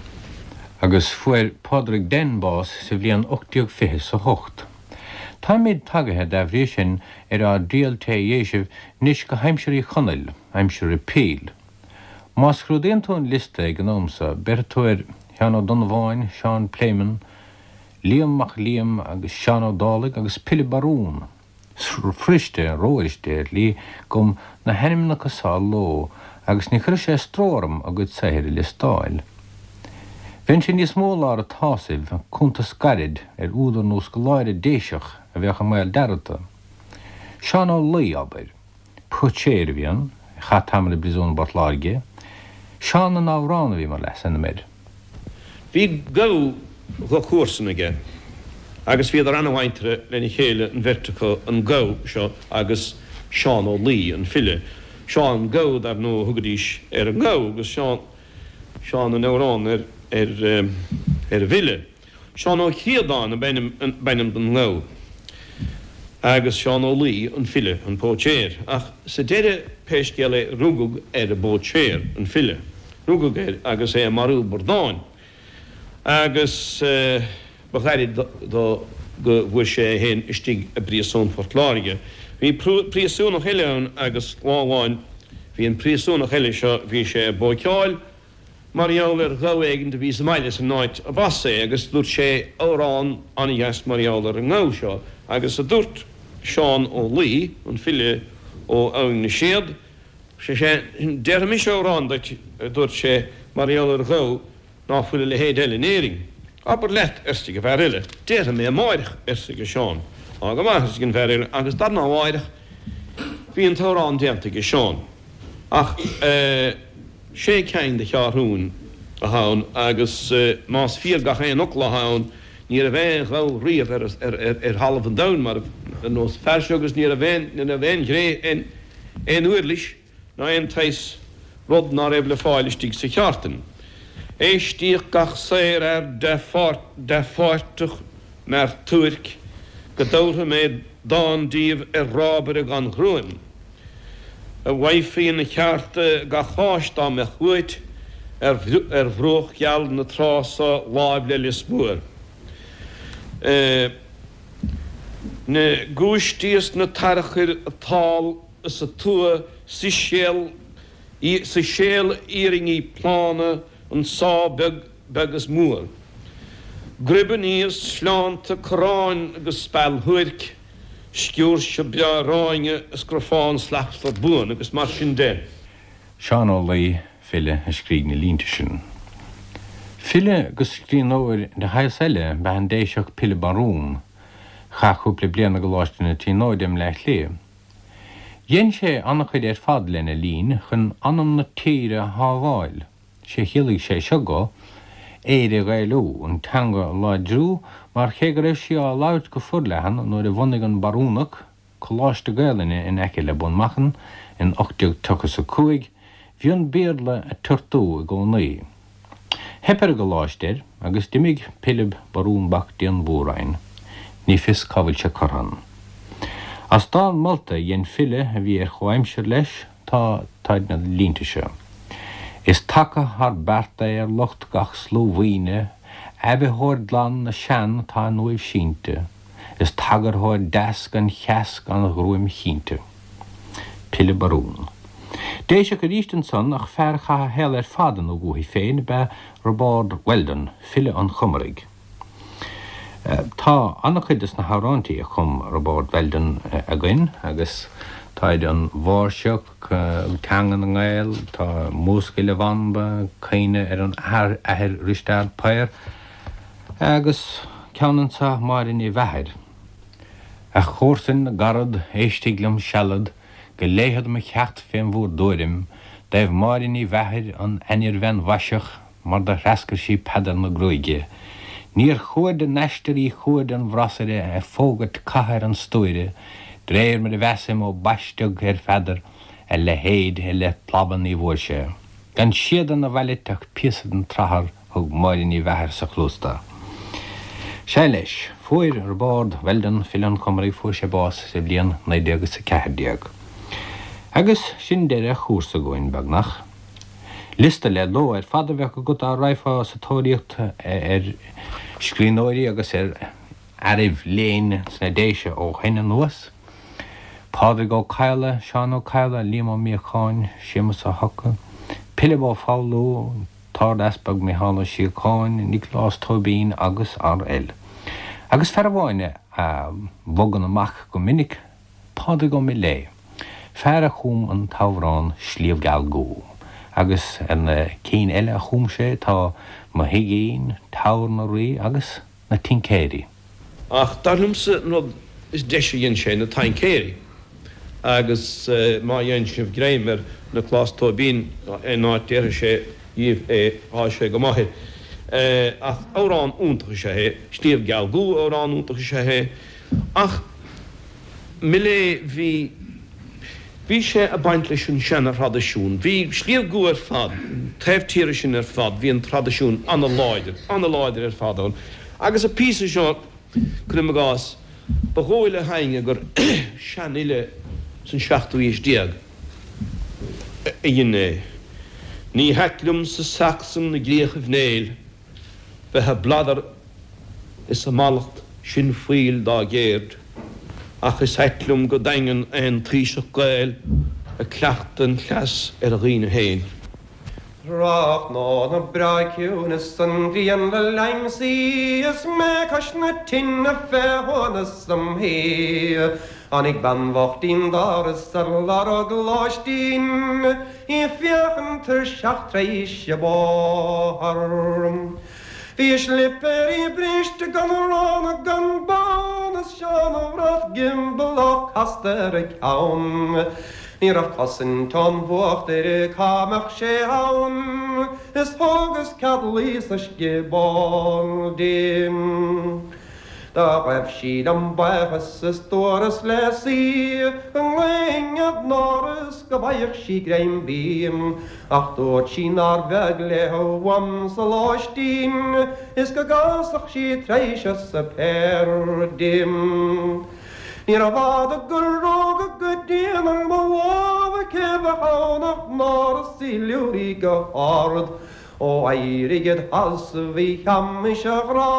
Agus fuair Pádraig Den bás sa bhliain 1820 's a hocht. Táimíd tagaithe, dá bhrí sin, ar ár dtriall tae dhéisibh 'nois go haimsir Uí Chonaill, aimsir Repeal. Má scrúdaíonn tú an liosta ag an am so, béarfaidh tú ar Sheán Ó Donnabháin, Seán Pléimeann, Liam Mac Liam agus Seán Ó Dálaigh agus Pilib Barún. Fuiriste, rófhuiriste ar shlí, dom na hainmneacha sa ló agus ní chuireadh sé stró orm a gcuid saothair a liostáil. Bheinnse níos mó i lár an tsásaimh, cuntas gairid ar údar nó scoláire Déiseach a bheadh i mbaol dearmadta. Seán Ó Laoi, abair. Póitséir a bhí ann, a chaith tamall i bpríosún i bPort Láirge. Seán an Amhrán a bhí mar leasainm air. Bhí gabha dha chomharsan aige agus bhíodar ana-mhuinteartha lena chéile an bheirt acu, an gabha seo agus Seán Ó Laoi, an file. Seán an Gabha, dar ndóigh, a thugaidís ar an ngabha agus Seán, Seán an Amhrán ar, ar, ar an bhfile. Seán Ó Críodáin ab ainm don ngabha agus Seán Ó Laoi an file, an póitséir. Ach sa deireadh, pé scéal é, rugadh ar an bpóitséir, an file. Rugadh air agus é ag marú bradáin. Agus ba ghairid dó go bhfuair sé é féin istigh i bpríosún Phort Láirge. Bhí príosúnach eile ann agus lá amháin bhí an príosúnach eile seo, bhí sé ag bóiceáil, mar gheall ar ghabha éigint a bhí sa mbaile san áit a b'as é agus dúirt sé amhrán an-dheas mar gheall ar an ngabha seo agus a dúirt Seán Ó Laoi, an file ó Abhainn na Séad, sé sin, déarfaidh mise amhrán duit, a dúirt sé, mar gheall ar ghabha ná fuil a leithéid eile in Éirinn. Abair leat, arsa an fear eile. Déarfaidh mé amáireach, arsa Seán. Á go maith, arsa an fear eile, agus darna mháireach bhí an t-amhrán déanta aige Seán. Ach eh. Sé ceann de cheathrúin atá ann agus más fíor gach aon fhocal atá ann, ní raibh aon ghabha riamh ar thalamh an domhain mar ar nós an fear seo agus ní raibh aon ní raibh aon ghné aon aon uirlis ná aon tsaghas rud ná raibh le fáil istigh sa cheártain. Éistíodh gach saorfhear dea-pháirteach m'fhear tuairc go dtabharfaidh mé dán díobh ar rábaire gan ghruaim. A bhfaighfí ina cheárta gach áis dá mbeadh uait ar bhruach geal na trá so láimh le Lios Mór. Na giúistí is na tarchuir an t-ál is an tua siséal siséal iarainní plána an sá beag beag is mór. Gribeannaí is sleánta corráin agus speal shuairc, sciúirse breá ráinge is grafán slachtmhar buan agus mar sin de. Seán Ó Laoi, file, a scrígh na línte sin. File agus scríbhneoir de shaghas eile ba ea an Déiseach Pilib Barún. Chaith cúpla bliain i gColáiste na Tríonóide i mBleá Cliath. Dhein sé an-chuid ar fad lena linn chun anam na tíre a shábháil. Sé chiallaigh sé seo dó, Éire a Ghaelú, an teanga a láidriú, mar cé go raibh sí á labhairt go forleathan nuair a bhunaigh an Barúnach Coláiste Gaelainne in aice le Bun Machan in 1835, bhí an Béarla ag tiortú i gcónaí. Theip ar an gcoláiste air agus d'imigh Pilib Barún Mhac Dianmhóráin. Ní fios cá bhfuil sé curtha ann. As dán molta a dhein file a bhí ar chomhaimsir leis, Tá, táid na línte seo. Is taca thar beart é ar lucht gach sluamhaoine, aibhitheoir glan na sean atá in uaimh sínte, is tagarthóir deas gan cheas gan ghruaim chinnte. Pilib Barún. Déiseach arís ansan ach fear a chaith a shaol ar fad ina dhúthaigh féin ab ea Roibeárd Weldon, file an Chomaraigh. Tá an-chuid de na hamhráintí a chum Roibeárd Weldon againn agus táid An Mháirseach, Teanga na nGael, tá Múscail a Bhanba, Caoineadh ar an Athair Risteard Paor agus ceann anso Máire Ní Mheachair. A chomharsain na gcarad, éistig liom sealad, Go léighfead mo cheacht fén bhúr dtuairim, dtaobh Máire Ní Mheachair, an ainnir-bhean mhaiseach, mar do threascair sí Peadar na Gruaige. Níor chuaird a n-aistear í chuaird an bhrasaire ag fógairt catha ar an stuaire, d'réir mar a mheasaim ó baisteadh ar Pheadar, a leithéid i leith plaba ní bhfuair sé. Gan síoda 'na vailit ach píosa den tsrathar thug Máire Ní Mheachair sa chluas do. Sea leis, fuair Roibeárd Weldon, file an Chomaraigh, fuair sé bás sa bhliain 1914. Agus sin deireadh an chúrsa againn, beagnach. Liosta le ló ar fad a bheadh agat dá raghfá sa tóraíocht ar scríbhneoirí agus ar fhearaibh léinn sna Déise ó shoin anuas, Pádraig Ó Cadhla, Seán Ó Cadhla, Liam Ó Míocháin, Séamus Ó hEocha, Pilib Ó Foghlú, tArd-Easpag Micheál Ó Síocháin, Nioclás Tóibín agus rl. Agus fear amháin a bhogann amach go minic. Pádraig Ó Miléadha, fear a chum an t-amhrán Sliabh Geal Gcú, agus ar na cinn eile a chum sé tá Mo Thigín, Teamhair na Rí agus Na Tincéirí. Ach dar liomsa an rud is deise a dhein sé, Na Taincéirí. Agus má dhein sibh greim ar Nioclás Tóibín aon áit déarfaidh sé dhíbh é, tá sé go maith air. Ach amhrán iontach is ea é. Sliabh Geal Gcú amhrán iontach is ea é. Ach Millea bhí, bhí sé ag baint leis an seana-thraidisiún. Bhí Sliabh gCua ar fad, an taobh tíre sin ar fad, bhí an traidisiún ana-láidir, ana-láidir ar fad ann. Agus an píosa seo, cuirim i gcás, ba dhóigh le héinne gur seanfhile san seachtú aois déag a dhein é. Ní hait liomsa Sacsain i gcríochaibh Néill bheith a' bladar is a' mallacht sin fuíll dá gceird, ach is ait liom go daingean aon taoiseach Gael ag cleachtadh an chleas ar a dhaoine féin. Tráthnóna breá ciúin is an ghrian le l'aimsí is mé cois na tine fé shuaimhneas im shuí. Tháinig bean bhocht 'dtí'n doras ar lorg lóistín, í ag féachaint tuirseach tar éis an bhóthair. Bhí a slipéirí briste gan arán ná gan bonn is seana-bhrat gioballach casta ar a ceann. Ní raibh cosaint ón bhfuacht uirthi cá mbeadh sé ann is thógas cead luí sa scioból di. Do ghaibh sí liom buíochas is dúras léi go nglaofainn ar an áras go bhfaigheadh sí greim bídh, ach dúirt sí nár bheag léi uaimse lóistín is go gcasfadh sí tar éis a suipéir di. Níorbh fhada gur rug go dian ar mo lámh, cé bheadh ann ach Nóra 's í liúraí go hard. Ó éirigh id sheasamh a Sheamais a ghrá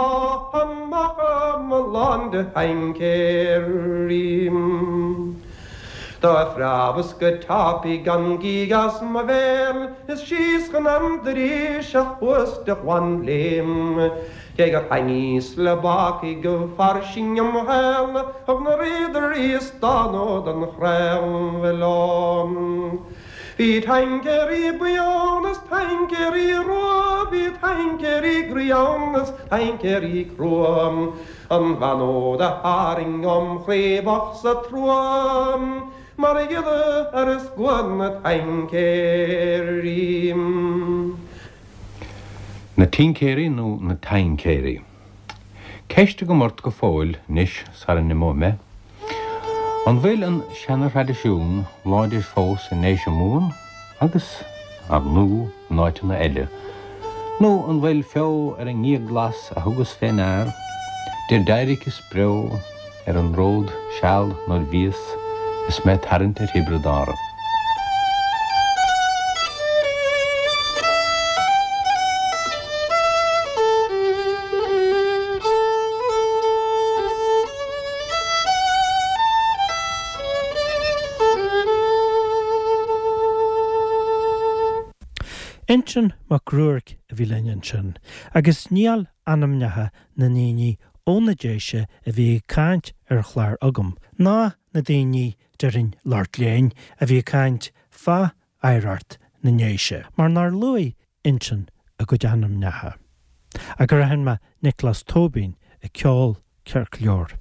amach a'm lán de thaincéirí. Do phreabas go tapaidh gan gíog as mo bhéal is síos chun an dorais a chuas de ghlanléim. Cé gur thaitníos le bacaigh go fairsing im shaol thug na riadairí stánadh don chraobh leo. Bhí taincéirí buí ann is taincéirí rua, bhí taincéirí groí ann is taincéirí crua, an bhean úd a tharraing óm chroí b'othsa trua mar ghile ar scua na taincéirí. Na Tincéirí nó na Taincéirí? Ceist agam ort go fóill anois sara n-imeoidh mé. An bhfuil an seana-thraidisiún láidir fós i nDéise Mumhan agus, ar ndú, in áiteanna eile? Nó an bhfuil feo ar an ngíog glas a thugas fé ndear, 'dir d'éiric is breo, ar an ród seal nuair bhíos is mé tarraingt ar Thiobraid Árann. Uinseann Mac Ruairc a bhí linn ansin, agus níl ainmneacha na ndaoine ó na Déise a bhí ag caint ar an chlár agam, ná na daoine, déarfainn, lucht léinn, a bhí ag caint fá oidhreacht na nDéise, mar nár luaigh Uinseann a gcuid ainmneacha. Ach gur aithin mé Nioclás Tóibín ag ceol ceart go leor.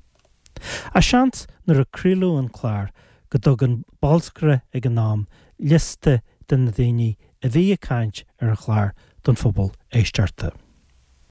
Ach seans nuair a craoladh an clár go dtug an bolscaire ag an am liosta de na daoine a bhí ag caint ar an chlár don phobal éisteachta.